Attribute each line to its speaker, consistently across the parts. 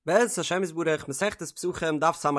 Speaker 1: בעזרת השם יתברך, מסכת פסחים, דף ס"ה,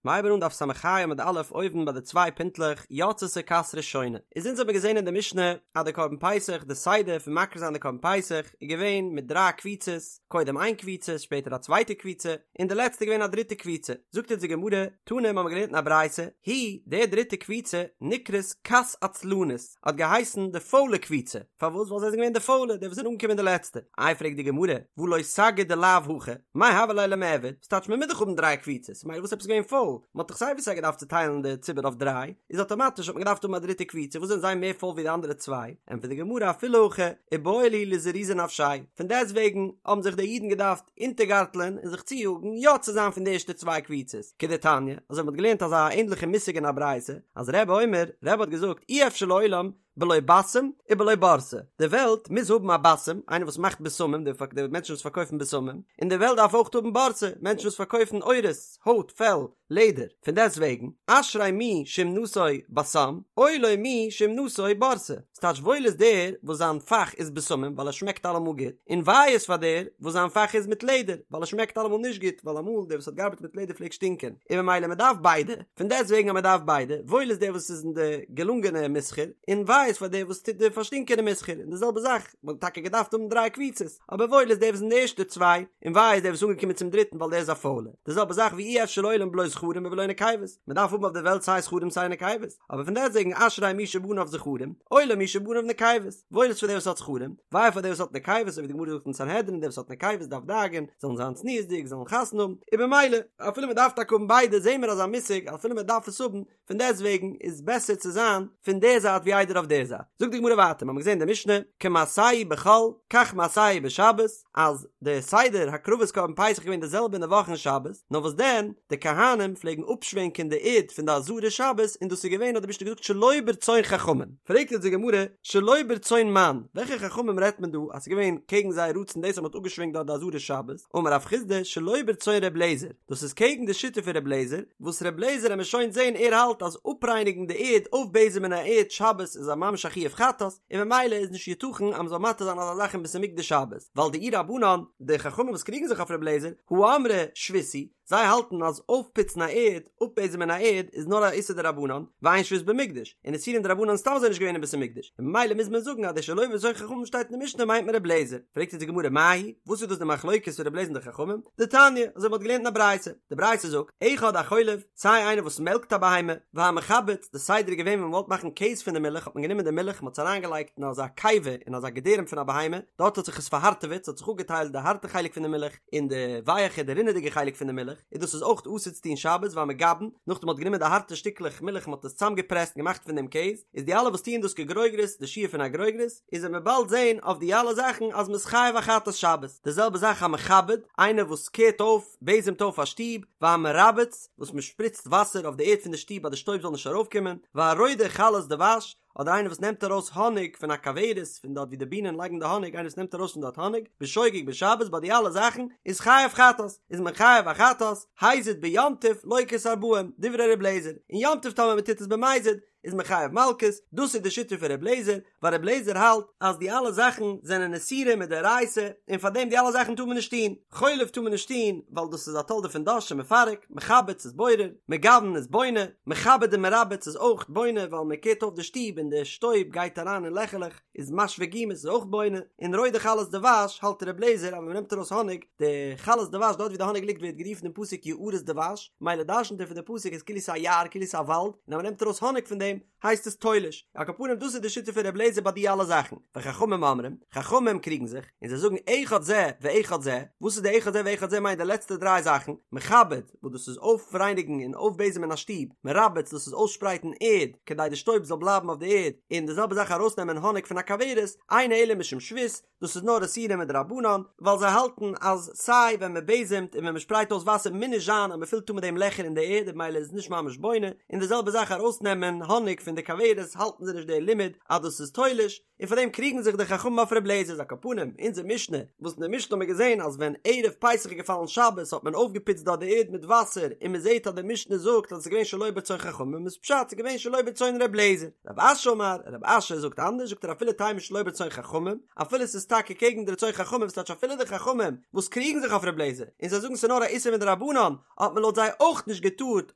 Speaker 1: מ'הייבן אן דף ס"ה עמוד א' אויבן ביי די צוויי פינטלעך, יצתה כת ראשונה. איז אונז האבן געזען אין די משנה אז די קרבן פסח, די סדר פון מקריב זיין די קרבן פסח, איז געווען מיט דריי קבוצות, קודם איין קבוצה, שפעטער א צווייטע קבוצה, און די לעצטע איז געווען א דריטע קבוצה. זאגט אונז די גמרא, תנא, מ'האמיר געלערנט אין א ברייתא, היא, די דריטע קבוצה, נקראת כת עצלנית. האט געהייסן די פוילע קבוצה, פארוואס? ווייל זיי זענען געווען די פוילע, די וואס זענען אנגעקומען די לעצטע. איי פרעגט די גמרא, והא לא סגי דלאו הכי, מאי הוה ליה למיעבד, ס'טייטש מען מוז דאך האבן דריי קבוצות, מילא וואס עפעס געווען פויל, מען האט דאך סיי ווי סיי געדארפט צוטיילן די ציבור אויף דריי, איז אטאמאטיש האט מען געדארפט האבן א דריטע קבוצה, וואס זענען זיי מער פויל ווי די אנדערע צוויי? ענטפערט די גמרא אפילו הכי, איבעי להו לזרוזי נפשייהו, פון דעסטוועגן האבן זיך די אידן געדארפט אונטערגארטלען און זיך צויאגן יא צו זיין פון די ערשטע צוויי קבוצות, כדתניא, אזוי ווי מ'האט געלערנט אזא ענדליכע מושג אין א ברייתא, אז רבי אומר, רבי האט געזאגט, אי אפשר לעולם בלא בסם ובלא בורסי, די וועלט מוז האבן א בסם, איינער וואס מאכט בשמים, די מענטשן וואס פארקויפן בשמים, און די וועלט דארף אויך האבן בורסי, מענטשן וואס פארקויפן עורות, הויט, פעל, לעדער, פון דעסט וועגן, אשרי מי שאומנתו בסם, אוי לו מי שאומנתו בורסי, ס'טייטש וואויל איז דער וואס זיין פאך איז בשמים ווייל ער שמעקט אלעמאל גוט, און וויי איז פאר דער וואס זיין פאך איז מיט לעדער ווייל ער שמעקט אלעמאל נישט גוט, ווייל אמאל דער וואס האט געארבעט מיט לעדער פלעגט שטינקען, און ממילא מען דארף ביידע, פון דעסט וועגן אז מען דארף ביידע, וואויל איז דער וואס איז אין די געלונגענע מסחר, און וויי איז פאר דער וואס טוט די פארשטינקענע מסחר, און די זעלבע זאך, מען האט טאקע געדארפט האבן דריי קבוצות, אבער וואויל איז דער וואס אין די ערשטע צוויי, און וויי איז דער וואס איז אנגעקומען צום דריטן ווייל דער איז א פוילער. די זעלבע זאך ואי אפשר לעולם בלא זכרים ובלא נקבות, מען דארף האבן אויף די וועלט סיי זכרים סיי נקבות, אבער פון דעסטוועגן אשרי מי שבניו זכרים, אוי לו מי שבניו נקבות, וואויל איז פאר דער וואס האט זכרים, וויי פאר דער וואס האט נקבות, אזוי ווי די גמרא זאגט אין סנהדרין דער וואס האט נקבות דארף דאגה'ן, זאלן זיין צניעות'דיג, זאלן חתונה האבן, און במילא, אפילו מען דארף טאקע האבן ביידע, זעהן מיר אזא מושג, אפילו מען דארף עס האבן, פון דעסט וועגן איז בעסער צו זיין פון דער זייט ווי איידער אויף דער זייט. זאגט די גמרא ווייטער, מ'האמיר געזען אין די משנה, כמעשהו בחול, כך מעשהו בשבת, אז די סדר הקרבת קרבן פסח איז געווען די זעלבע אין די וואך און שבת, נאר וואס דען, די כהנים פלעגן אפשווענקען די ערד פון די עזרה שבת, און דאס איז געווען האט די משנה געזאגט שלא ברצון חכמים. פרעגט יעצט די גמרא, שלא ברצון מאן, וועלכע חכמים רעדט מען דא אז ס'איז געווען קעגן זייער רצון דאס אז מ'האט אפגעשווענקט דארט די עזרה שבת, אמר רב חסדא, שלא ברצון ר' אליעזר, דאס איז קעגן די שיטה פון ר' לעזער, וואס ר' לעזער עמיר שוין זעהן ער האלט אז אפרייניגן די ערד אויפבעזעמען א ערד שבת איז א ממש א חיוב חטאת, און ממילא איז נישט יתכן אז מ'זאל מתיר זיין אזא זאך אין בית המקדש שבת, ווייל דאי רבנן, די חכמים וואס קריגן זיך אויף ר' לעזער, הא אמרי שבות היא, זיי האלטן אז אויפפוצן א ערד, אפבעזעמען א ערד, איז נאר א איסור דרבנן, ואין שבות במקדש, און איסורים דרבנן איז סתם אזוי נישט געווען אין בית המקדש, און ממילא מוז מען זאגן אז די שלא ברצון חכמים שטייט אין די משנה מיינט מען ר' לעזער, פרעגט אונז די גמרא מאי היא, וואס איז דאס די מחלוקת פון ר' לעזער און די חכמים? דתניא, אזוי מ'האט געלערנט אין א ברייתא, די ברייתא זאגט, אחד החולב, סיי איינער וואס מעלקט א בהמה, והמחבץ, די סדר איז געווען ווען מ'וואלט מאכן קעז פון די מילך האט מען גענומען די מילך מ'האט עס אריינגעלייגט אין אזא קיבה אין אזא געדערעם פון א בהמה, דארט האט זיך עס פארהארטעוועט, ס'האט זיך אפגעטיילט די הארטע חלק פון די מילך און די ווייעכע די רינעדיגע חלק פון די מילך, און דאס איז אויך אסור צו טון שבת והמגבן, נאכדעם מ'האט גענומען די הארטע שטיקלעך מילך מ'האט עס צוזאמגעפרעסט און געמאכט פון דעם קעז, איז די אלע וואס טוען דאס כגרוגרת, די שיעור פון א גרוגרת, איז וועט מען באלד זעהן אויף די אלע זאכן אז מ'איז חייב א חטאת שבת, די זעלבע זאך המכבד, איינער וואס קערט אויף, בעזעמט אויף א שטוב, והמרבץ, וואס מ'שפריצט וואסער אויף די ערד פון די שטוב אז די שטויב זאל נישט ארויפקומען, והרודה חלות דבש, אדער איינער וואס נעמט ארויס האניג פון א כוורת, פון דארט ווי די בינען לייגן די האניג, איינער וואס נעמט ארויס פון דארט האניג, בשוגג בשבת, ביי די אלע זאכן, איז חייב חטאת, איז מען חייב א חטאת, הזיד ביום טוב לוקה את הארבעים, דברי ר' אליעזר, אין יום טוב טאמער מ'טוט עס במזיד, איז מען חייב מלקות, דאס איז די שיטה פון ר' לעזער, ווייל ר' לעזער האלט אז די אלע זאכן זענען איסורים מדאורייתא, און פאר דעם די אלע זאכן טאר מען נישט טון, חולב טאר מען נישט טון, ווייל דאס איז א תולדה פון דש שמפרק, מחבץ איז בורר, מגבן איז בונה, מכבד און מרבץ איז אויך בונה, ווייל מען קערט אויף די שטוב און די שטויב גייט אריין אין לעכעלעך, איז משווה גומות איז אויך בונה, און רודה חלות דבש האלט ר' לעזער אז ווען מען נעמט ארויס האניג, די חלות דבש דארט ווי די האניג ליגט ווערט גערופן אין פסוק יערות דבש, מילא דרשנט ער פון די פסוק איז כאילו ס'איז א יער כאילו ס'איז א וואלד, און אז מען נעמט ארויס האניג פון דעם הייסט עס תולש, על כל פנים דאס איז די שיטה פון ר' לעזער ביי די אלע זאכן, וחכמים אומרים, חכמים קריגן זיך, און זיי זאגן אחד זה ואחד זה, וואס איז די אחד זה ואחד זה מיינט די לעצטע דריי זאכן, מכבד, וואס דאס איז אויפרייניגן און אויפבעזעמען א שטוב, מרבץ דאס איז אויסשפרייטן ערד כדי די שטויב זאל בלייבן אויף די ערד, און די זעלבע זאך ארויסנעמען האניג פון א כוורת, אינו אלא משום שבות, דאס איז נאר איסורים מדרבנן, ווייל זיי האלטן אז סיי ווען מען בעזעמט און ווען מען שפרייט אויס וואסער מוז נישט זיין אז מען פילט אן מיט דעם לעכער אין די ערד און ממילא איז עס נישט ממש בונה, און די זעלבע זאך ארויסנעמען האניג. האניג פון די כוורת האלטן זיי נישט די לימוד אז דאס איז תולש, און פאר דעם קריגן זיך די חכמים אויף ר' לעזער איז על כל פנים אונזער משנה וואס אין די משנה האט מען געזען אז ווען ערב פסח איז געפאלן שבת האט מען אויפגעפוצט דארט די ערד מיט וואסער און מען זעט אז די משנה זאגט אז עס איז געווען שלא ברצון חכמים איז פשט ס'איז געווען שלא ברצון ר' לעזער רב אשי אמר רב אשי זאגט אנדערש זאגט ער אפילו תימא שלא ברצון חכמים אפילו עס איז טאקע קעגן די רצון חכמים וואס טייטש אפילו די חכמים וואס קריגן זיך אויף ר' לעזער און זיי זאגן ס'איז נאר א איסור מדרבנן האט מען לויט זיי אויך נישט געטארט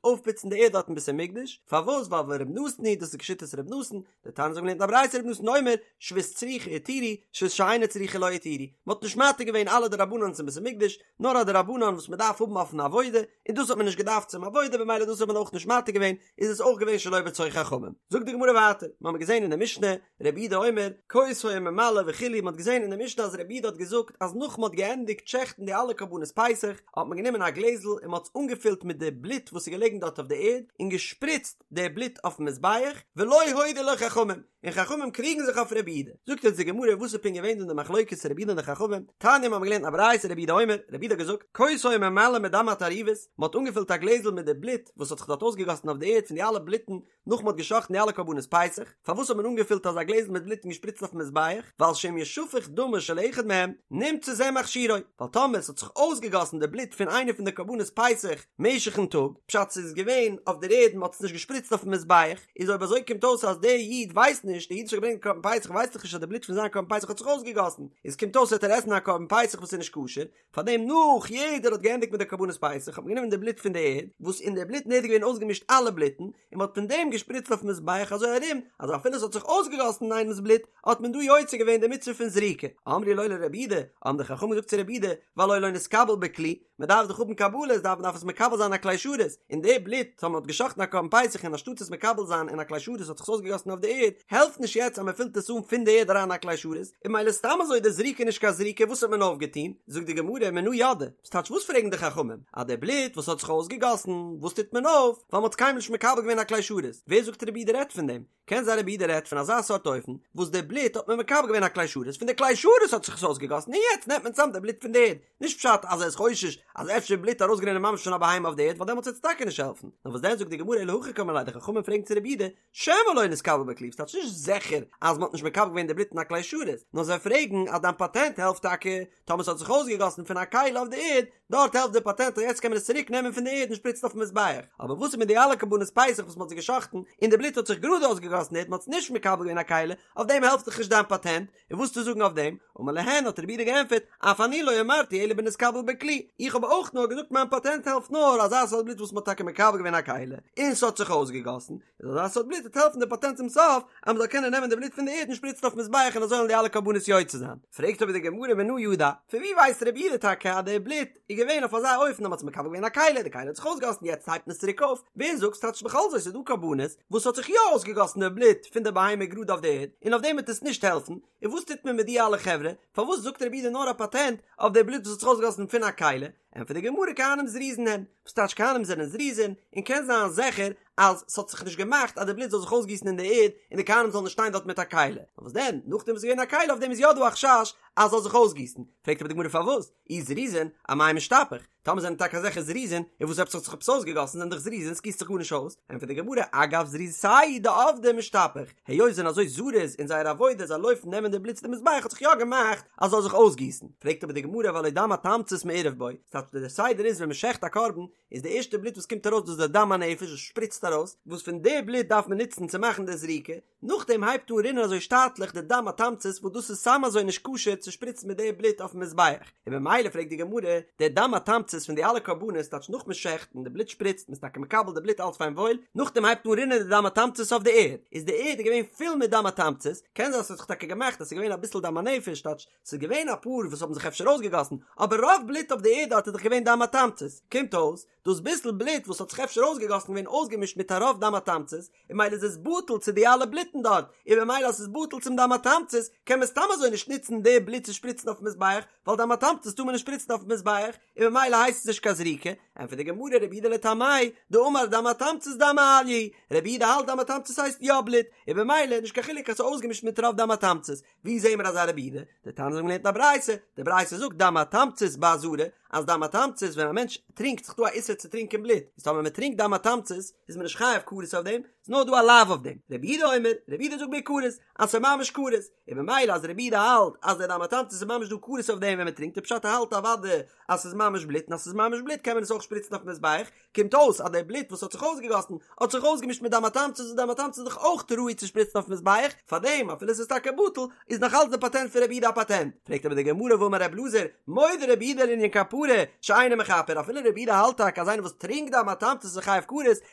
Speaker 1: אויפפוצן די ערד דארט אין בית המקדש פארוואס ווייל ור' נתן היא דאס איז כשיטת ר' נתן דתניא אזוי האבן געלערנט א ברייתא רבי נתן אומר שבות צריכה התירו שבות שאינה צריכה לא התירו מען האט נישט מתיר געווען אלע דרבנן'ס אין בית המקדש נאר א דרבנן וואס מען דארף האבן אויפן עבודה און דאס האט מען נישט געדארפט צום עבודה במילא דאס האט מען אויך נישט מתיר געווען איז עס אויך געווען שלא ברצון חכמים זאגט די גמרא ווייטער מיר האבן געזען אין די משנה רבי יהודה אומר כוס היה ממלא וכו' מען האט געזען אין די משנה אז רבי יהודה האט געזאגט אז נאך מען האט געענדיגט שעכטן די אלע קרבנות פסח האט מען גענומען א גלעזל און מען האט עס אנגעפילט מיט די בלוט וואס איז געלעגן דארט אויף די ערד און געשפריצט די בלוט אויפן מזבח, ולא הודו לו חכמים, און חכמים קריגן זיך אויף רבי יהודה. זאגט אונז די גמרא וואס איז פונקט געווען דא די מחלוקת רבי יהודה און די חכמים, תניא מיר האבן געלערנט א ברייתא רבי יהודה אומר, רבי יהודה האט געזאגט, כוס היה ממלא מדם התערובות, מען האט אנגעפילט א גלעזל מיט די בלוט וואס האט זיך דארט אויסגעגאסן אויף די ערד פון די אלע בלוטן נאך מען האט געשאכטן די אלע קרבנות פסח, פארוואס האט מען אנגעפילט אזא גלעזל מיט בלוט און געשפריצט אויפן מזבח, ווייל שאם ישפך דמו של אחד מהם, נמצא זה מכשירו, ווייל טאמער עס האט זיך אויסגעגאסן די בלוט פון איינע פון די קרבנות פסח משך'ן טאג, פשט ס'איז געווען אויף דער ערד און מ'האט עס נישט געשפריצט אויפן מזבח, איז אויב אזוי קומט אויס אז דער איד ווייסט נישט, דער איד וואס האט געברענגט קרבן פסח ווייסט דאך נישט אז די בלוט פון זיין קרבן פסח האט זיך אויסגעגאסן, איז קומט אויס וועט ער עסן א קרבן פסח וואס איז נישט כשר, פארדעם נאך יעדער האט געענדיגט מיט די קרבנות פסח האט מען גענומען די בלוט פון די ערד, וואס אין די בלוט אין ערד איז געווען אויסגעמישט אלע בלוטן, און מ'האט פון דעם געשפריצט אויפן מזבח אזוי ארום אז אפילו עס האט זיך אויסגעגאסן איינעמס בלוט האט מען דא יוצא געווען די מצוה פון זריקה. אמרו לו לרבי יהודה, האבן די חכמים געזאגט צו רבי יהודה, והלא לא נתקבל בכלי, מען דארף דאך האבן קבלות דארף מען דארף עס מקבל זיין אין א כלי שרת, און די בלוט טאמער מען האט געשחט'ן א קרבן פסח און אנשטאט עס מקבל זיין אין א כלי שרת האט זיך עס אויסגעגאסן אויף די ערד, העלפט נישט יעצט אז מען פילט עס אן פון די ערד אריין אין א כלי שרת, און ממילא סתם אזוי די זריקה נישט קיין זריקה וואס האט מען אויפגעטון? זאגט די גמרא מנא ידעי, וואס טייטש וואס פרעגן די חכמים? אז די בלוט וואס האט זיך אויסגעגאסן וואס טוט מען אויף? ווייל מען האט עס קיינמאל נישט מקבל געווען אין א כלי שרת, ווער זאגט רבי יהודה רעדט פון דעם? קען זיין רבי יהודה רעדט פון אזא סארט אופן וואס די בלוט האט מען מקבל געווען א כלי שרת פון די כלי שרת האט זיך עס אויסגעגאסן און יעצט נעמט מען צאם די בלוט פון די ערד נישט פשט אז ער איז חושש אז אפשר בלוט ארויסגערינען ממש פון א בהמה אויף די ערד ווייל דעמאלטס וועט עס טאקע נישט העלפן נאר וואס דען זאגט די גמרא אלא הכי קאמרי ליה די חכמים פרעגן צו רבי יהודה שמא לא נתקבל בכלי וואס טייטש נישט זיכער אז מען האט נישט מקבל געווען די בלוט אין א כלי שרת נאר זיי פרעגן אז דיין פאטענט העלפט טאקע טאמער ס'האט זיך אויסגעגאסן פון א כלי אויף די ערד, דארט העלפט די פאטענט אז יעצט קען מען עס צוריק נעמען פון די ערד און שפריצן אויפן מזבח. אבער וואס איז מיט די אלע קרבנות פסח וואס מ'האט זיי געשחט'ן און די בלוט האט זיך גראד אויסגעגאסן די ערד מ'האט עס נישט מקבל געווען א כלי, אויף דעם העלפט דאך נישט דיין פאטענט, און וואס צו זאגן אויף דעם? אמר להן האט רבי יהודה געענטפערט, אף אני לא אמרתי אלא בנתקבל בכלי, איך האב אויך נאר געזאגט מיין פאטענט העלפט נאר אזא סארט בלוט וואס מ'האט טאקע מקבל געווען א כלי און ס'האט זיך אויסגעגאסן, איז אזא סארט בלוט וועט העלפן די פאטענט צום סוף אז מ'זאל קענען נעמען די בלוט פון די ערד און שפריצן אויפן מזבח און אזוי וועלן די אלע קרבנות יוצא זיין. פרעגט אבער די גמרא מנא ידע, פון ווי ווייסט רבי יהודה טאקע אז די בלוט איז געווען אויף אזא אופן אז מ'האט עס מקבל געווען א כלי, די כלי האט זיך אויסגעגאסן יעצט הייבט מען עס צוריק אויף, ווער זאגט ס'טייטש בכל זאת איז דא קרבנות וואס האט זיך יא אויסגעגאסן די בלוט פון די בהמה גראד אויף די ערד און אויף דעם וועט עס נישט העלפן, און וואס טוט מען מיט די אלע חברה, פארוואס זאגט רבי יהודה נאר א פאטענט אויף די בלוט וואס האט זיך אויסגעגאסן פון א כלי, ענטפערט די גמרא כהנים זריזין הן, וואס טייטש כהנים זענען זריזין, און קען זיין זיכער אז ס'האט זיך נישט געמאכט אז די בלוט זאל זיך אויסגיסן אין די ערד און די כהנים זאלן נישט שטיין דארט מיט א כלי, נאר וואס דען, נאכדעם וואס ס'איז געווען א כלי אויף דעם איז יא דא א חשש אז ס'זאל זיך אויסגיסן, פרעגט אבער די גמרא פארוואס, אי זריזין, אמאי משתפך, טאמער זענען טאקע אזעלכע זריזין, און וואס עפעס האט זיך עפעס אויסגעגאסן זענען דאך זריזין ס'גיסט זיך גארנישט אויס, ענטפערט די גמרא אגב זריזותייהו דעבדי משתפך, היות זיי זענען אזוי זריז אין זייער עבודה זיי לויפן נעמען די בלוט צו די מזבח האט זיך יא געמאכט אז ס'זאל זיך אויסגיסן, פרעגט אבער די גמרא והלא דם התמצית מעורב בו, ס'טייטש דער סדר איז ווען מ'שעכט א קרבן איז די ערשטע בלוט וואס קומט ארויס דאס איז די דם הנפש וואס שפריצט ארויס, וואס פון די בלוט דארף מען נוצן צו מאכן די זריקה, נאכדעם הייבט אן רינען אזוי שטאטליך די דם התמצית וואס דאס איז סתם אזוי נישט כשר צו שפריצן מיט די בלוט אויפן מזבח, און ממילא פרעגט די גמרא, די דם התמצית פון די אלע קרבנות טייטש נאך מען שעכט און די בלוט שפריצט מען איז טאקע מקבל די בלוט אלץ פיין וואויל, נאכדעם הייבט אן רינען די דם התמצית אויף די ערד, איז די ערד געווען פול מיט דם התמצית, קען זיין ס'האט זיך טאקע געמאכט אז ס'איז געווען אביסל דם הנפש טייטש ס'איז געווען אפאר וואס האבן זיך אפשר אויסגעגאסן, אבער רוב בלוט אויף די ערד דארט איז דאך געווען דם התמצית, קומט אויס, דאס ביסל בלוט וואס האט זיך אפשר אויסגעגאסן געווען אויסגעמישט מיט א רוב דם התמצית, און ממילא איז עס בטל צו די אלע בלוטן דארט, און ממילא אז ס'איז בטל צום דם התמצית, קען מען סתם אזוי נישט נוצן די בלוט צו שפריצן אויפן מזבח, ווייל דם התמצית טאר מען נישט שפריצן אויפן מזבח, און ממילא הייסט עס נישט קיין זריקה. ענטפערט די גמרא רבי יהודה לטעמיה, דאמר דם התמצית דם מעליא, רבי יהודה האלט דם התמצית הייסט יא בלוט, און במילא נישט קיין חילוק אז ס'איז אויסגעמישט מיט רוב דם התמצית, ווי זעהן מיר אזא רבי יהודה? דתניא אזוי האבן מיר געלערנט אין א ברייתא, די ברייתא זאגט דם התמצית בעזרה, אז דם התמצית ווען א מענטש טרינקט ס'איז דא א איסור צו טרינקען בלוט, איז טאמער מען טרינקט דם התמצית איז מען נישט חייב כרת אויף דעם, ס'איז נאר דא א לאו אויף דעם, רבי יהודה אומר, רבי יהודה זאגט בכרת, אז ס'איז ממש כרת, און במילא אז רבי יהודה האלט אז די דם התמצית איז ממש דא כרת אויף דעם ווען מען טרינקט איז פשט ער האלט אוודאי אז ס'איז ממש בלוט און אז ס'איז ממש בלוט קען מען עס אויך שפריצן אויפן מזבח, קומט אויס אז די בלוט וואס האט זיך אויסגעגאסן האט זיך אויסגעמישט מיט דם התמצית און דם התמצית איז דאך אויך ראוי צו שפריצן אויפן מזבח, פארדעם אפילו ס'איז טאקע בטל איז נאך אלץ די פאטענט פון רבי יהודה א פאטענט. פרעגט אבער די גמרא והאמר ר' אלעזר, מודה רבי יהודה לענין כפרה שאינו מכפר אפילו רבי יהודה האלט טאקע אז איינער וואס טרינקט דם התמצית איז חייב כרת,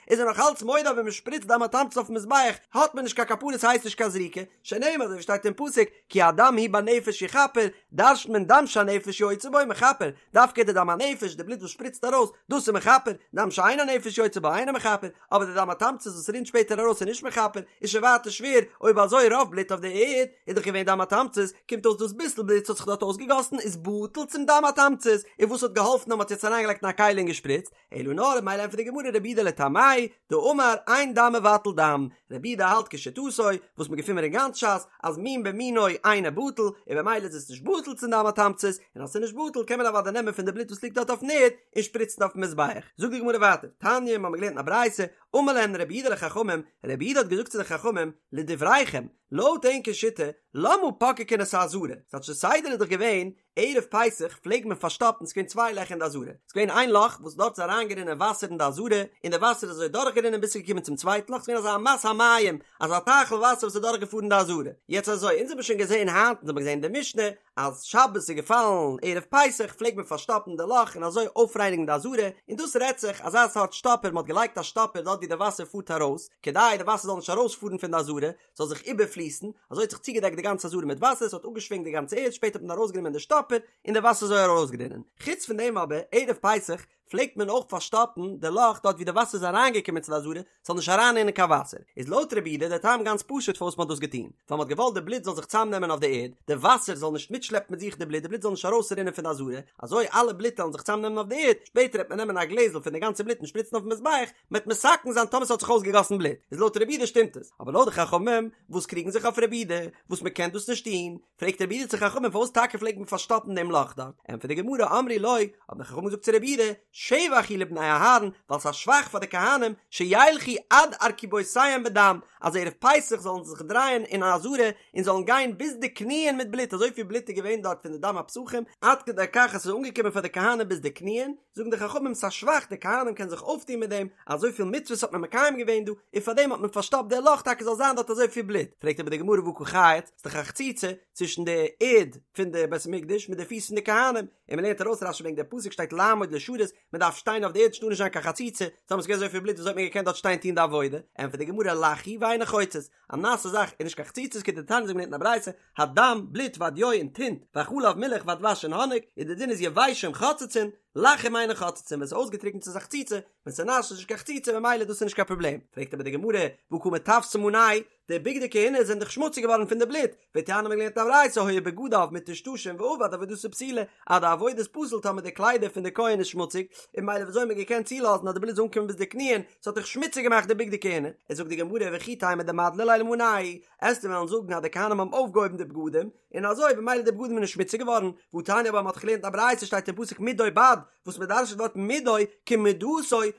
Speaker 1: איז ער נאך אלץ מודה אז ווען מ'שפריצט דם התמצית אויפן מזבח האט מען נישט קיין כפרה ס'הייסט נישט קיין זריקה, שנאמר אזוי ווי שטייט אין פסוק כי הדם הוא בנפש יכפר, דרש'נט מען דם שהנפש יוצאה בו מכפר, דווקא די דם הנפש, די בלוט וואס שפריצט ארויס, דאס איז מכפר, דם שאין הנפש יוצאה בו אינו מכפר, אבער די דם התמצית וואס רינט שפעטער ארויס איז נישט מכפר, איז שוין ווייטער שווער, אויב אזוי רוב בלוט אויף די ערד איז דאך געווען דם התמצית, קומט אויס דאס ביסל בלוט וואס האט זיך דארט אויסגעגאסן איז בטל צום דם התמצית, און וואס האט געהאלפן אז מען האט יעצט אריינגעלייגט אין א כלי און געשפריצט, אלא נאר מילא ענטפערט די גמרא רבי יהודה לטעמיה דאמר אין דם מבטל דם, רבי יהודה האלט כשיטתו וואס מ'געפינט מיר אין גאנץ ש"ס אז מין במינו אינו בטל און במילא איז עס נישט בטל צום דם התמצית, און אז ס'איז נישט בטל קען מען אוודאי נעמען פון די בלוט וואס ליגט דארט אויפן ערד און שפריצן אויפן מזבח. זאגט די גמרא ווייטער, תניא, מ'האמיר געלערנט אין א ברייתא, אמר להן רבי יהודה לחכמים, רבי יהודה האט געזאגט צו די חכמים, לדבריכם, לויט ענקער שיטה, למה פוקקין את העזרה, ס'טייטש די סדר איז דאך געווען ערב פסח פלעג מען פארשטאפן, ס'געווען צוויי לעכער אין די עזרה, ס'געווען איין לאך וואס דארט איז אריינגערינען וואסער אין די עזרה, און די וואסער איז אזוי דורכגערינען ביז ס'איז געקומען צום צווייטן לאך, ס'געווען אזא אמת המים, אזא טייכל וואסער וואס איז דורכגעפארן די עזרה. יעצט אזוי, אונז האבן שוין געזען היינט, אונז האבן געזען אין די משנה, אז שבת איז געפאלן ערב פסח פלעג מען פארשטאפן די לאך און אזוי אויפרייניגן די עזרה, און דאס רעדט זיך אזא סארט שטאפער, מ'האט געלייגט א שטאפער דארט ווי די וואסער פארט ארויס, כדי די וואסער זאל נישט ארויספארן פון די עזרה, זאל זיך איבערפליסן, אזוי האט זיך צוגעדעקט די גאנצע עזרה מיט וואסער, עס האט אפגעשווענקט די גאנצע ערד, שפעטער האט מען ארויסגענומען די שטאפער, און די וואסער איז אזוי ארויסגערינען. חוץ פון דעם אבער, ערב פסח, פלעגט מען אויך פארשטאפן די לאך דארט ווי די וואסער איז אריינגעקומען צו די עזרה, ס'זאל נישט אריינרינען קיין וואסער. איז לויט רבי יהודה דער טעם גאנץ פשוט פארוואס מען האט דאס געטון, ווייל מען האט געוואלט די בלוט זאל זיך צוזאמנעמען אויף די ערד, די וואסער זאל נישט מיטשלעפן מיט זיך די בלוט, די בלוט זאל נישט ארויסרינען פון די עזרה, אזוי אלע בלוט וועלן זיך צוזאמנעמען אויף די ערד, שפעטער וועט מען נעמען א גלעזל פון די גאנצע בלוט און שפריצן אויפן מזבח, מ'וועט מתקן זיין טאמער ס'האט זיך אויסגעגאסן בלוט, איז לויט רבי יהודה שטימט עס, אבער לויט די חכמים וואס קריגן זיך אויף רבי יהודה, וואס מ'קען דאס נישט טון, פרעגט רבי יהודה צו חכמים פארוואס טאקע פלעגט מען פארשטאפן דעם לאך דארט, ענטפערט די גמרא אמרו לו, האבן די חכמים געזאגט צו רבי יהודה, שבח הוא לבני אהרן, ווייל ס'איז א שבח פאר די כהנים, שילכו עד ארכובותיהם בדם, אז ערב פסח זאלן זיי זיך דרייען אין עזרה און זאלן גיין ביז די קניען מיט בלוט, אזויפיל בלוט איז געווען דארט פון די דם הפסחים, עד כדי כך אז ס'איז אנגעקומען פאר די כהנים ביז די קניען, זאגן די חכמים ס'א שבח די כהנים קענען זיך אויפטון מיט דעם, אזויפיל מצוות האט מען מקיים געווען דא, און פארדעם האט מען פארשטאפט די לאך טאקע זאל זיין דארט אזויפיל בלוט, פרעגט אבער די גמרא והא קא חייץ, ס'איז דאך א חציצה צווישן די ערד פון די בית המקדש מיט די פיס פון די כהנים, און מ'לערנט ארויס רש"י וועגן די פסוק שטייט לעמוד לשרת, מ'דארף שטיין אויף די ערד ס'טאר נישט זיין קיין חציצה, טאמער ס'איז געווען אזויפיל בלוט וויאזוי האט מען געקענט דארט שטיין טון די עבודה, ענטפערט די גמרא לח הוא ואינו חוצץ, א נאסע זאך איז נישט קיין חציצה כדתניא אזוי ווי מ'לערנט אין א ברייתא, הדם, בלוט והדיו און טינט, והחלב מילך והדבש און האניג, און די דין איז יבשים חוצצין, לחים אינן חוצצין, ווען ס'איז אויסגעטריקנט איז א חציצה, ווען ס'איז נאס איז נישט קיין חציצה ממילא דאס איז נישט קיין פראבלעם, פרעגט אבער די גמרא, והא קא מטווסי מאנייהו, די בגדי כהונה זענען דאך שמוציג געווארן פון די בלוט, והתניא מ'האט געלערנט א ברייתא היו בגדיו מטושטשין ואבד עבודתו פסולה, אז די עבודה איז פסול טאמער די קליידער פון די כהן איז שמוציג, און ממילא וויאזוי האט מען געקענט צולאזן אז די בלוט זאל אנקומען ביז די קניען, ס'האט דאך שמוציג געמאכט די בגדי כהונה, איז זאגט די גמרא וכי תימא דמדלי להו למאנייהו, עסטו וועלן זאגן אז די כהנים האבן אויפגעהויבן די בגדים, און אזוי במילא די בגדים איז נישט שמוציג געווארן, והתניא אבער מ'האט דאך געלערנט א ברייתא שטייט אין פסוק מדו בד, וואס מ'דרש'נט ווארט מדו כמדתו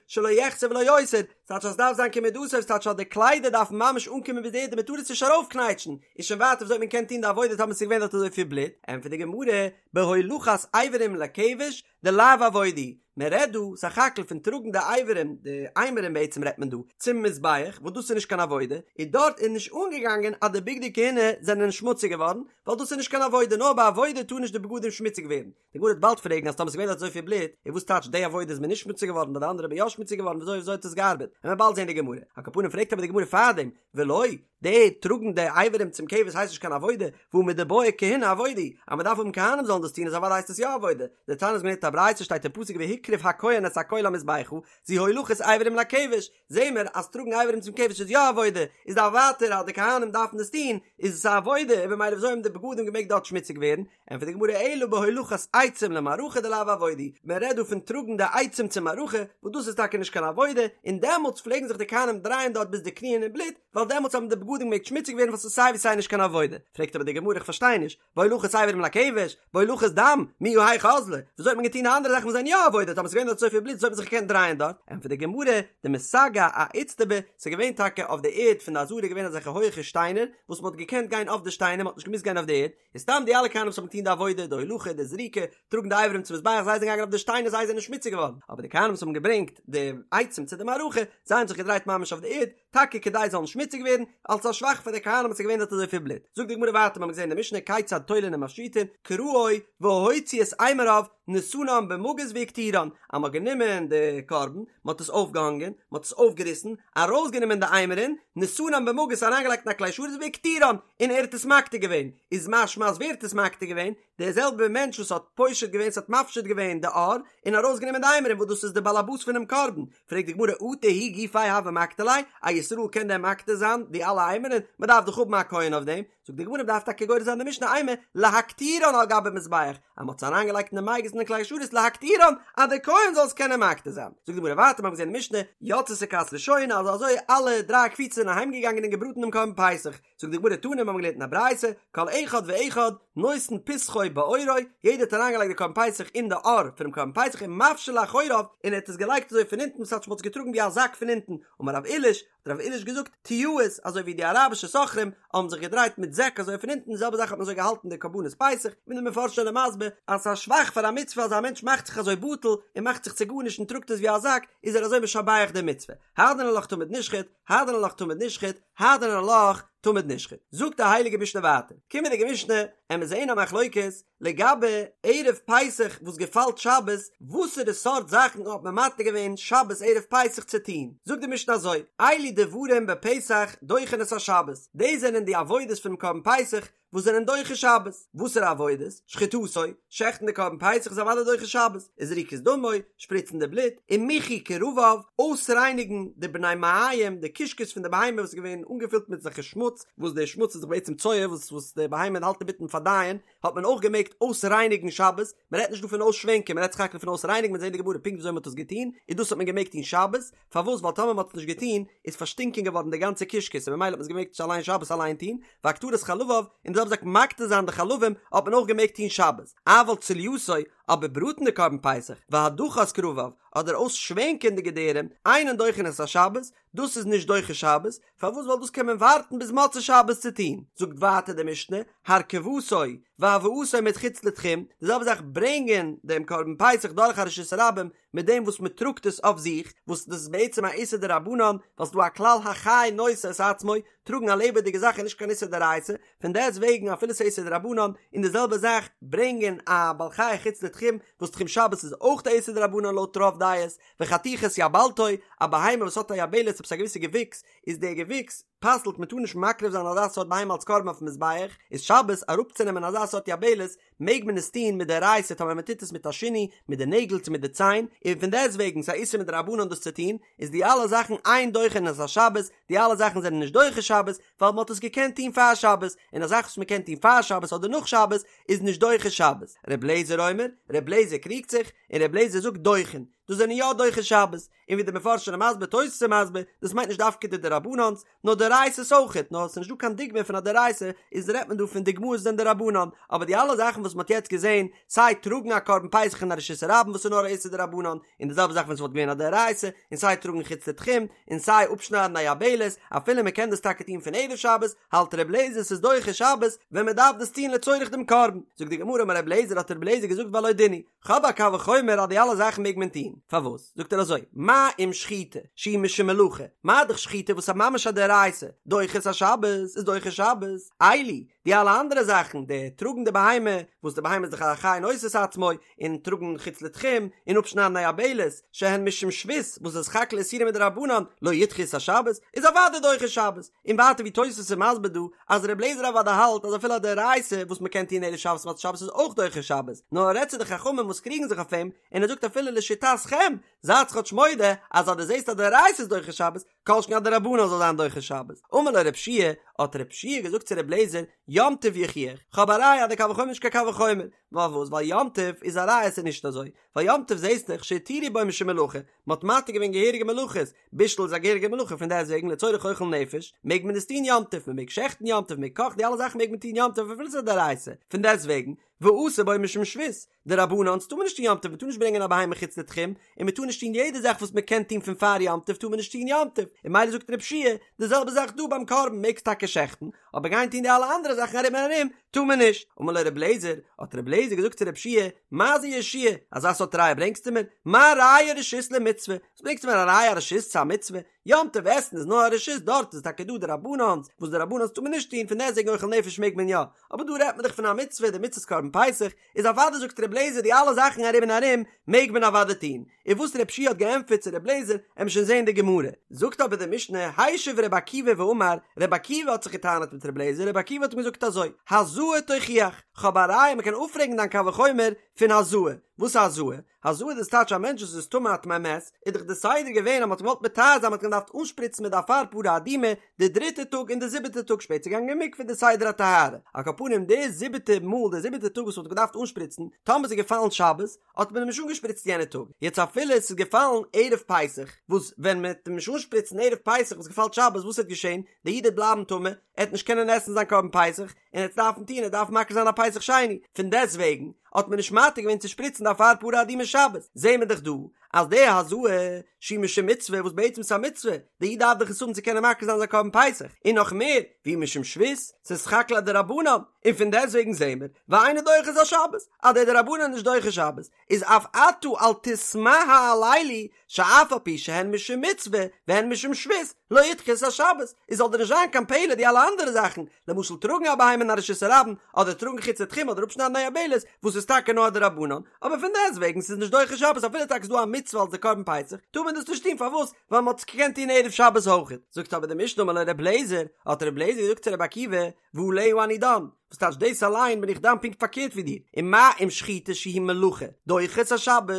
Speaker 1: שלא יחסר ולא יותר, ס'טייטש אז ס'דארף זיין כמדתו, ס'טייטש אז די קליידער דארפן ממש אנקומען ביז די ערד און מ'טאר עס נישט ארויפקנייטשן, איז שוין ווייטער וויאזוי האט מען געקענט טון די עבודה טאמער ס'איז געווען דארט אזויפיל בלוט, ענטפערט די גמרא, בהולכת אברים לכבש, דלאו עבודה, מען רעדט דא סך הכל פון טראגן די אברים, די אימורים בעצם רעדט מען דא, צום מזבח, וואס דאס איז נישט קיין עבודה, און דארט איז נישט אנגעגאנגען אז די בגדי כהונה זענען שמוציג געווארן, ווייל דאס איז נישט קיין עבודה, נאר ביי עבודה טאר נישט די בגדים שמוציג ווערן. די גמרא וועט באלד פרעגן אז טאמער ס'איז געווען דארט אזויפיל בלוט, און וואס טייטש די עבודה איז מען נישט שמוציג געווארן, ביי די אנדערע איז מען יא שמוציג געווארן, וויאזוי וויאזוי האט עס געארבעט? וועלן מיר באלד זען די גמרא. על כל פנים פרעגט אבער די גמרא פארדעם, ולא. די טראגן די אברים צום כבש הייסט נישט קיין עבודה, והא מדבעי כהונה עבודה היא, אז מען דארף האבן כהנים זאלן דאס טון איז אוודאי הייסט עס יא עבודה, דתניא איז געווען א ברייתא שטייט אין פסוק והקריב הכהן את הכל המזבחה, זו הולכת אברים לכבש, זעהן מיר אז טראגן אברים צום כבש איז יא עבודה, איז דאך ווייטער אז די כהנים דארפן דאס טון, איז עס א עבודה, און במילא וויאזוי האבן די בגדים געמעגט דארט שמוציג ווערן? ענטפערט די גמרא אלא בהולכת עצים למערכה דלאו עבודה היא, מען רעדט דא פון טראגן די עצים צום מערכה, וואס דאס איז טאקע נישט קיין עבודה, און דעמאלטס פלעגן זיך די כהנים דרייען דארט ביז די קניען אין בלוט, ווייל דעמאלטס האבן די בגדים געמעגט שמוציג ווערן ווייל ס'איז סיי ווי סיי נישט קיין עבודה. פרעגט אבער די גמרא איך פארשטיי נישט, בהולכת אברים לכבש, בהולכת דם, מיהא היכי אזלי, וויאזוי האט מען געטון די אנדערע זאכן וואס זענען יא עבודה, טאמער ס'איז געווען דארט אזויפיל בלוט וויאזוי האט מען זיך געקענט דרייען דארט? ענטפערט די גמרא, דמסגי אאיצטבא, ס'איז געווען טאקע אויף די ערד פון די עזרה געווען אזעלכע הויעכע שטיינער, וואס מ'האט געקענט גיין אויף די שטיינער, מ'האט נישט געמוזט גיין אויף די ערד, און סתם די אלע כהנים וואס האבן געטון די עבודה, די הולכה, די זריקה, טראגן די אברים צום מזבח, זיי זענען געגאנגען אויף די שטיינער זיי זענען שמוציג געווארן, אבער די כהנים וואס האבן געברענגט די עצים צו די מערכה, זיי האבן זיך געדרייט ממש אויף די ערד, טאקע כדי זיי זאלן שמוציג ווערן, אלס א שבח פאר די כהנים וואס איז געווען דארט אזויפיל בלוט. זאגט די גמרא ווייטער, מיר האבן געזען אין די משנה כיצד תולין ומפשיטין, קרעו והוציא את אימוריו, נתנן במגיס והקטירן, אז מען האט גענומען די קרבן, מען האט עס אויפגעהאנגען, מען האט עס אויפגעריסן, ארויסגענומען די אימורין, נתנן במגיס אריינגעלייגט אין א כלי שרת והקטירן, און ער האט עס מקטיר געווען, איז משמע אז ווער האט עס מקטיר געווען? דער זעלבער מענטש וואס האט פושט געווען, ס'האט מפשיט געווען די עור, און ארויסגענומען די אימורין וואס דאס איז די באלעבאס פונעם קרבן, פרעגט די גמרא אטו הוא גופיה הוה מקטיר ליה, א ישראל קען דען מקטיר זיין די אלע אימורין? מען דארף דאך האבן א כהן אויף דעם, זאגט די גמרא מען דארף טאקע גורס זיין די משנה אימא להקטירן על גבי מזבח, אז מען האט עס אריינגעלייגט אין די מגיס אין די כלי שרת להקטירן אז דער כהן זאל עס קענען מקטיר זיין, זאגט די גמרא ווייטער מיר האבן געזען אין די משנה יצתה כת ראשונה אז אזוי אלע דריי קבוצות זענען אהיימגעגאנגען און געבראטן דעם קרבן פסח, זאגט די גמרא תנא מיר האבן געלערנט אין א ברייתא, כל אחד ואחד נותן פסחו בעורו, יעדער האט אריינגעלייגט די קרבן פסח אין די עור פונעם קרבן פסח ומפשיל לאחוריו, און ער האט עס געלייגט אזוי פון אונטן ס'טייטש מ'האט עס געטראגן ווי א זאק פון אונטן, אמר רב עיליש, האט רב עיליש געזאגט, טייעות, אזוי ווי די אראבישע סוחרים האבן זיך געדרייט מיט זעק אזוי פון אונטן, די זעלבע זאך האט מען אזוי געהאלטן די קרבנות פסח, ווי די מפרשים זענען מסביר אז ס'איז א שבח פאר א מצוה אז א מענטש מאכט זיך אזוי בטל און מאכט זיך צו גארנישט און טראגט עס ווי א זאק, איז ער אזוי משבח די מצוה. הדרן עלך תמיד נשחט, הדרן עלך תמיד נשחט, הדרן עלך תמיד נשחט. זאגט די הייליגע משנה ווייטער, קומענדיגע משנה, עמיר זעהן א מחלוקת לגבי ערב פסח וואס געפאלט שבת, וואסערע סארט זאכן האט מען מתיר געווען שבת ערב פסח צו טון, זאגט די משנה אזוי, אלו דברים בפסח דוחין את השבת, דאס זענען די עבודות פונעם קרבן פסח וואס זענען דוחה שבת, וואסערע עבודות? שחיטתו, שעכטן די קרבן פסח איז אוודאי דוחה שבת, וזריקת דמו, שפריצן די בלוט, ומיחוי כרביו, אויסרייניגן די בני מעיים, די קישקעס פון די בהמה וואס איז געווען אנגעפילט מיט אזעלכע שמוץ, וואס די שמוץ איז דאך בעצם צואה וואס וואס די בהמה האלט אינמיטן פארדייען, האט מען אויך געמעגט אויסרייניגן שבת, מען רעדט נישט דא פון אויסשווענקען, מען רעדט סך הכל פון אויסרייניגן, מ'וועט זען די גמרא פונקט וויאזוי מען האט עס געטון, און דאס האט מען געמעגט טון שבת, פארוואס ווייל טאמער מען האט עס נישט געטון איז פארשטינקען געווארן די גאנצע קישקעס און ממילא האט מען עס געמעגט אליין שבת אליין טון, והקטרת חלביו, און די זעלבע זאך מקטיר זיין די חלבים האט מען אויך געמעגט טון שבת, אבל צלייתו, אבער בראטן די קרבן פסח, והדחת כרביו, אדער אויסשווענקען די געדערים, אינן דוחין את השבת, דאס איז נישט דוחה שבת, פארוואס ווייל דאס קען מען ווארטן ביז מוצאי שבת צו טון, זאגט ווייטער די משנה, הרכבתו והבאתו מחוץ לתחום, די זעלבע זאך ברענגען דעם קרבן פסח דורך א רשות הרבים, מיט דעם וואס מען טראגט עס אויף זיך, וואס דאס איז בעצם א איסור דרבנן, ווייל ס'דא א כלל החי נושא את עצמו, טראגן א לעבעדיגע זאך איז נישט קיין איסור דאורייתא, פון דעסט וועגן אפילו ס'איז איסור דרבנן, און די זעלבע זאך ברענגען א בעל חי חוץ לתחום, וואס תחום שבת איז אויך א איסור דרבנן לויט רוב דעות, וחתיכת יבלתו, א בהמה וואס האט א יבלת עפעס א געוויסע געוויקס, איז דער געוויקס פסל'ט מען טאר נישט מקריב זיין אזא סארט בהמה אלס קרבן אויפן מזבח, איז שבת אראפצונעמען אזא סארט יבלת מעג מען עס טון מדאורייתא טאמער מען טוט עס מיט א שינוי מיט די נעגל צו מיט די ציין, און פון דעסט וועגן ס'איז א איסור מדרבנן דאס צו טון, איז די אלע זאכן אין דוחין את השבת, די אלע זאכן זענען נישט דוחה שבת, ווייל מען האט עס געקענט טון פאר שבת, און א זאך וואס מען קען טון פאר שבת אדער נאך שבת איז נישט דוחה שבת. ר' לעזער אומר, ר' לעזער קריגט זיך, און ר' לעזער זאגט דוחין, דאס זענען יא דוחה שבת, און ווי די מפרשים זענען מסביר תוס' איז מסביר, דאס מיינט נישט דווקא די דרבנן'ס, נאר דאורייתא'ס אויכעט, נאר עס איז נישט דא קיין דוגמא פון א דאורייתא, איז רעדט מען דא פון דוגמאות וואס זענען דרבנן, אבער די אלע זאכן וואס מען האט יעצט געזען, סיי טראגן א קרבן פסח אין א רשות הרבים וואס איז נאר א איסור דרבנן, און די זעלבע זאך ווען עס וואלט געווען א דאורייתא, און סיי טראגן חוץ לתחום, און סיי אפשניידן א יבלת, אפילו מען קען דאס טאקע טון פון ערב שבת, האלט ר' לעזער ס'איז דוחה שבת, ווען מען דארף דאס טון לצורך דעם קרבן. זאגט די גמרא אמר ר' לעזער האט ר' לעזער געזאגט והלא דין הוא, כ'האב א קל וחומר אז די אלע זאכן מעג מען טון. פארוואס? זאגט ער אזוי, מה אם שחיטה שהיא משום מלאכה, מה דאך שחיטה וואס איז ממש א דאורייתא, דוחה את השבת, איז דוחה שבת, אלו, די אלע אנדערע זאכן, די טראגן די בהמה, וואס די בהמה איז דאך א חי נושא את עצמו, און טראגן חוץ לתחום, און אפשניידן א יבלת, שהן משום שבות, וואס איז סך הכל איסורים מדרבנן, לא ידחו את השבת, איז אוודאי דוחה שבת. און ווייטער ווי תוספות איז מסביר דא, אז ר' אליעזר אוודאי האלט אז אפילו א דאורייתא וואס מען קען טון ערב שבת מוצאי שבת איז אויך דוחה שבת, נאר ער רעדט צו די חכמים וואס קריגן זיך אויף אים, און ער זאגט אפילו לשיטתכם, זייטס כאטש מודה אז אז דו זעסט א דאורייתא איז דוחה שבת, כל שכן א דרבנן זאל זיין דוחה שבת. אמר לו רב שיע, האט רב שיע געזאגט צו ר' אליעזר, יום טוב יוכיח, כ'האב א ראיה אז די קל וחומר איז נישט קיין קל וחומר, פארוואס? ווייל יום טוב איז א ראיה ס'איז נישט אזוי, ווייל יום טוב זעסט דאך שהתירו בו משום מלאכה, מ'האט מתיר געווען געהעריגע מלאכות, בישול איז א געהעריגע מלאכה פון דעסטוועגן לצורך אוכל נפש מעג מען עס טון יום טוב, מ'מעג שעכטן יום טוב, מ'מעג קאכן, די אלע זאכן מעג מען טון יום טוב אפילו ס'איז א דאורייתא, פון דעסטוועגן ואסור בו משום שבות, דרבנן'ס טאר מען נישט טון יום טוב, מ'טאר נישט ברענגען א בהמה חוץ לתחום, און מ'טאר נישט טון יעדע זאך וואס מ'קען טון פון פאר יום טוב טאר מען נישט טון יום טוב, און ממילא זאגט רב שיע די זעלבע זאך דא ביים קרבן מעגסט טאקע שעכטן, אבער גיין טון די אלע אנדערע זאכן ארום און ארום טאר מען נישט. אמר לו רבי אליעזר, האט רבי אליעזר געזאגט צו רב שיע, מה זה יהושע, אזא סארט ראיה ברענגסטו מיר? מה ראיה רשות למצוה? וואס ברענגסטו מיר א ראיה א רשות צו א מצוה? יום טוב עסן איז נאר א רשות דארט איז טאקע דא דרבנן'ס, וואס דרבנן'ס טאר מען נישט טון, פון דעסטוועגן אוכל נפש מעג מען יא, אבער דא רעדט מען דאך פון א מצוה, די מצות קרבן פסח, איז אוודאי זאגט רבי אליעזר די אלע זאכן ארום און ארום מעג מען אוודאי טון, און וואס רב שיע האט געענטפערט צו רבי אליעזר עמיר שוין זעהן די גמרא, זאגט אבער די משנה השיב רבי עקיבא ואמר, רבי עקיבא האט זיך געטענה'ט מיט רבי אליעזר, רבי עקיבא האט אים געזאגט אזוי, הזאה תוכיח, כ'האב א ראיה מ'קען אפפרעגן דיין קל וחומר פון הזאה, וואס איז הזאה? הזאה דאס טייטש א מענטש וואס איז טמא א טמא מת, איז דאך די סדר געווען אז מ'האט אים געוואלט מטהר זיין מ'האט אים געדארפט אנשפריצן מיט די אפר פרה אדומה די דריטע טאג און די זיבעטע טאג שפעטער געגאנגען אין מקווה די סדר הטהרה, על כל פנים די זיבעטע מאל די זיבעטע טאג וואס מ'האט געדארפט אנשפריצן, טאמער ס'איז געפאלן שבת, האט מען אים נישט אנגעשפריצט יענע טאג, יעצט אפילו עס איז געפאלן ערב פסח, וואס ווען מען וועט אים נישט אנשפריצן ערב פסח וואס געפאלט שבת וואס וועט געשען, דער איד וועט בלייבן טמא, ער וועט נישט קענען עסן זיין קרבן פסח, און ער וועט דארפן טון, ער וועט דארפן מקריב זיין א פסח שני, פון דעסט וועגן האט מען נישט מתיר געווען צו שפריצן די אפר פרה אדומה שבת, זעהן מיר דאך דא אז די הזאה שהיא משום מצוה וואס בעצם איז א מצוה, דער איד דארף דאך עס האבן צו קענען מקריב זיין זיין קרבן פסח, און נאך מער, והיא משום שבות, ס'איז סך הכל א דרבנן, און פון דעסט וועגן זעהן מיר, ואינה דוחה את השבת, אז דער דרבנן איז נישט דוחה שבת, איז אף אתה אל תתמה על אלו, שאף על פי שהן משום מצוה והן משום שבות, לא ידחו את השבת, איז זאל דיר נישט זיין קיין פלא די אלע אנדערע זאכן, למשל טראגן א בהמה אין א רשות הרבים, אדער טראגן חוץ לתחום אדער אפשניידן א יבלת, וואס איז טאקע נאר א דרבנן, אבער פון דעסט וועגן ס'איז נישט דוחה שבת אפילו טאקע ס'איז דא א מצוה אלס די קרבן פסח, טאר מען דאס נישט טון פארוואס? ווייל מ'האט עס געקענט טון ערב שבת אויכעט. זאגט אבער די משנה אמר לו ר' אליעזר, האט ר' אליעזר געזאגט צו ר' עקיבא, ועליה אני דן, וואס טייטש דאס אליין בין איך דן פונקט פארקערט ווי דיר, ומה אם שחיטה שהיא מלאכה דוחה את השבת,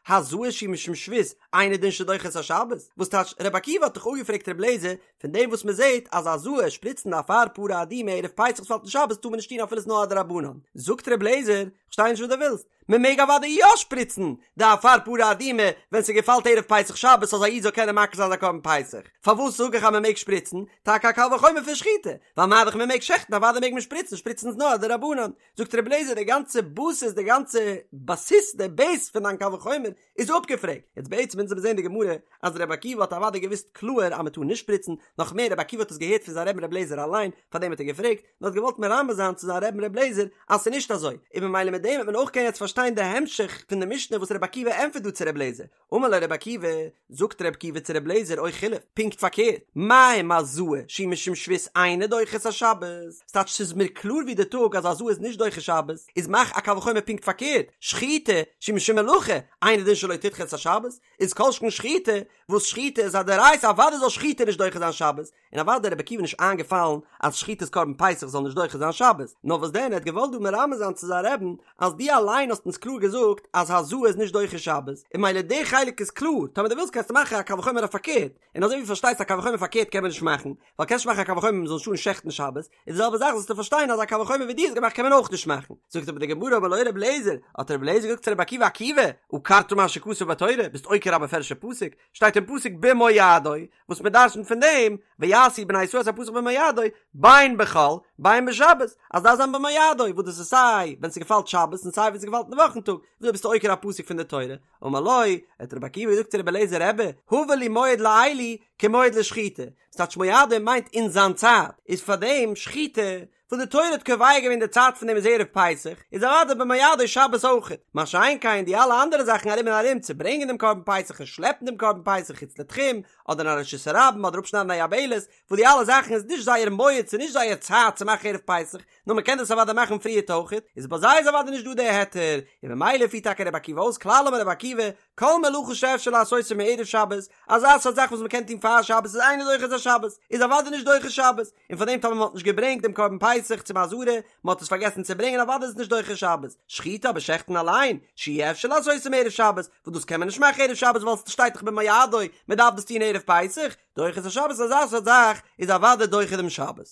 Speaker 1: הזאה שהיא משום שבות, אינו דין שדוחה את השבת, וואס טייטש ר' עקיבא האט דאך אפגעפרעגט ר' אליעזר פון דעם וואס מען זעט אז הזאה שפריצן די אפר פרה אדומה ערב פסח וואס פאלט אין שבת טאר מען נישט טון אפילו ס'איז נאר א דרבנן, זאגט ר' אליעזר, כ'פארשטיי נישט וואס דו ווילסט, מען מעג אוודאי יא שפריצן די אפר פרה אדומה ווען ס'געפאלט ערב פסח שבת אז א איד זאל קענען מקריב זיין זיין קרבן פסח, פארוואס זאג איך אז מען מעג שפריצן? טאקע א קל וחומר פון שחיטה, ווייל מה דאך מען מעג שעכטן אוודאי מעג מען שפריצן, שפריצן איז נאר א דרבנן, זאגט רבי אליעזר די גאנצע בסיס די גאנצע בסיס די בעיס פון דיין קל וחומר איז אפגעפרעגט, יעצט בעצם אונז האבן געזען די גמרא אז רבי עקיבא האט אוודאי געוואוסט קלאהר אז מען טאר נישט שפריצן, נאך מער רבי עקיבא האט עס געהערט פון זיין רבין רבי אליעזר אליין, פארדעם האט ער געפרעגט, נאר האט געוואלט מרמז זיין צו זיין רבין רבי אליעזר אז ס'איז נישט אזוי, און ממילא מיט דעם וועט מען אויך קענען יעצט פארשטיין די המשך פון די משנה וואס רבי עקיבא ענטפערט דא צו רבי אליעזר, אמר לו רבי עקיבא, זאגט רבי עקיבא צו רבי אליעזר או חילוף, פונקט פארקערט, מה אם הזאה שהיא משום שבות אינה דוחה את השבת, ס'טייטש ס'איז מיר קלאר ווי די טאג אז הזאה איז נישט דוחה שבת, איז מאך א קל וחומר פונקט פארקערט, שחיטה שהיא משום מלאכה אינו דין שלא תדחה את השבת, איז כל שכן שחיטה, וואס שחיטה איז א דאורייתא אוודאי זאל שחיטה נישט דוחה זיין שבת, און אוודאי רבי עקיבא נישט איינגעפאלן אז שחיטת קרבן פסח זאל נישט דוחה זיין שבת, נאר וואס דען ער האט געוואלט דא מרמז זיין צו זיין רעבן אז דו אליין האסט אונז קלאר געזאגט אז הזאה איז נישט דוחה שבת, און ממילא די חלק איז קלאר, טאמער דו ווילסט קענסטו מאכן א קל וחומר אויף פארקערט, און אזוי ווי פארשטייסט א קל וחומר פארקערט קען מען נישט מאכן, ווייל קענסט נישט מאכן א קל וחומר מ'זאל נישט טארן שעכטן שבת, איז די זעלבע זאך זאלסטו פארשטיין אז א קל וחומר ווי דו האסט געמאכט קען מען אויך נישט מאכן. זאגט אבער די גמרא אמר לו רבי אליעזר, האט רבי אליעזר געזאגט צו רבי עקיבא עקיבא, עקרת מה שכתוב בתורה, ביסט עוקר א מפורש'ע פסוק, שטייט אין פסוק במועדו, וואס מען דרשנ'ט פון דעם, ויעשו בני ישראל את הפסח במועדו, בין בחול, בין בשבת, אז דארף זיין במועדו, וואס דאס איז סיי ווען ס'געפאלט שבת און סיי ווען ס'געפאלט אין די וואכן טאג, וויאזוי ביסטו עוקר א פסוק פון די תורה? אמר לו, האט רבי עקיבא געזאגט צו רבי אליעזר רבי, הבא לי מועד לאלו כמועד לשחיטה. ס'טייטש מועדו מיינט אין זיין צייט, איז פארדעם שחיטה וואס די תורה האט קובע געווען די צייט פון דעם איז ערב פסח, איז אוודאי במועדו שבת אויכעט, מה שאין כן די אלע אנדערע זאכן ארום און ארום צו ברענגען דעם קרבן פסח און שלעפן דעם קרבן פסח חוץ לתחום, אדער אין א רשות הרבים אדער אפשניידן א יבלת, וואס די אלע זאכן איז נישט זייער מועד ס'איז נישט זייער צייט צו מאכן ערב פסח, נאר מ'קען דאס אוודאי מאכן פריערט אויכעט, איז ביי זיי איז אוודאי נישט דא די היתר, און ממילא פירט טאקע רבי עקיבא אויס כלל אמר רבי עקיבא, כל מלאכה שאפשר לעשותה מערב שבת, אזא סארט זאך וואס מ'קען טון פאר שבת איז אינו דוחה את השבת, איז אוודאי נישט דוחה שבת, און פאר דעם טאמער מ'האט נישט געברענגט דעם קרבן פסח צום עזרה, מ'האט עס פארגעסן צו ברענגען אוודאי איז עס נישט דוחה שבת, שחיטה אבער שעכטן אליין, שאי אפשר לעשותה מערב שבת, וואס דאס קען מען נישט מאכן ערב שבת ווייל ס'שטייט דאך במועדו, מ'דארף דאס טון ערב פסח, דוחה את השבת אזא סארט זאך איז אוודאי דוחה דעם שבת.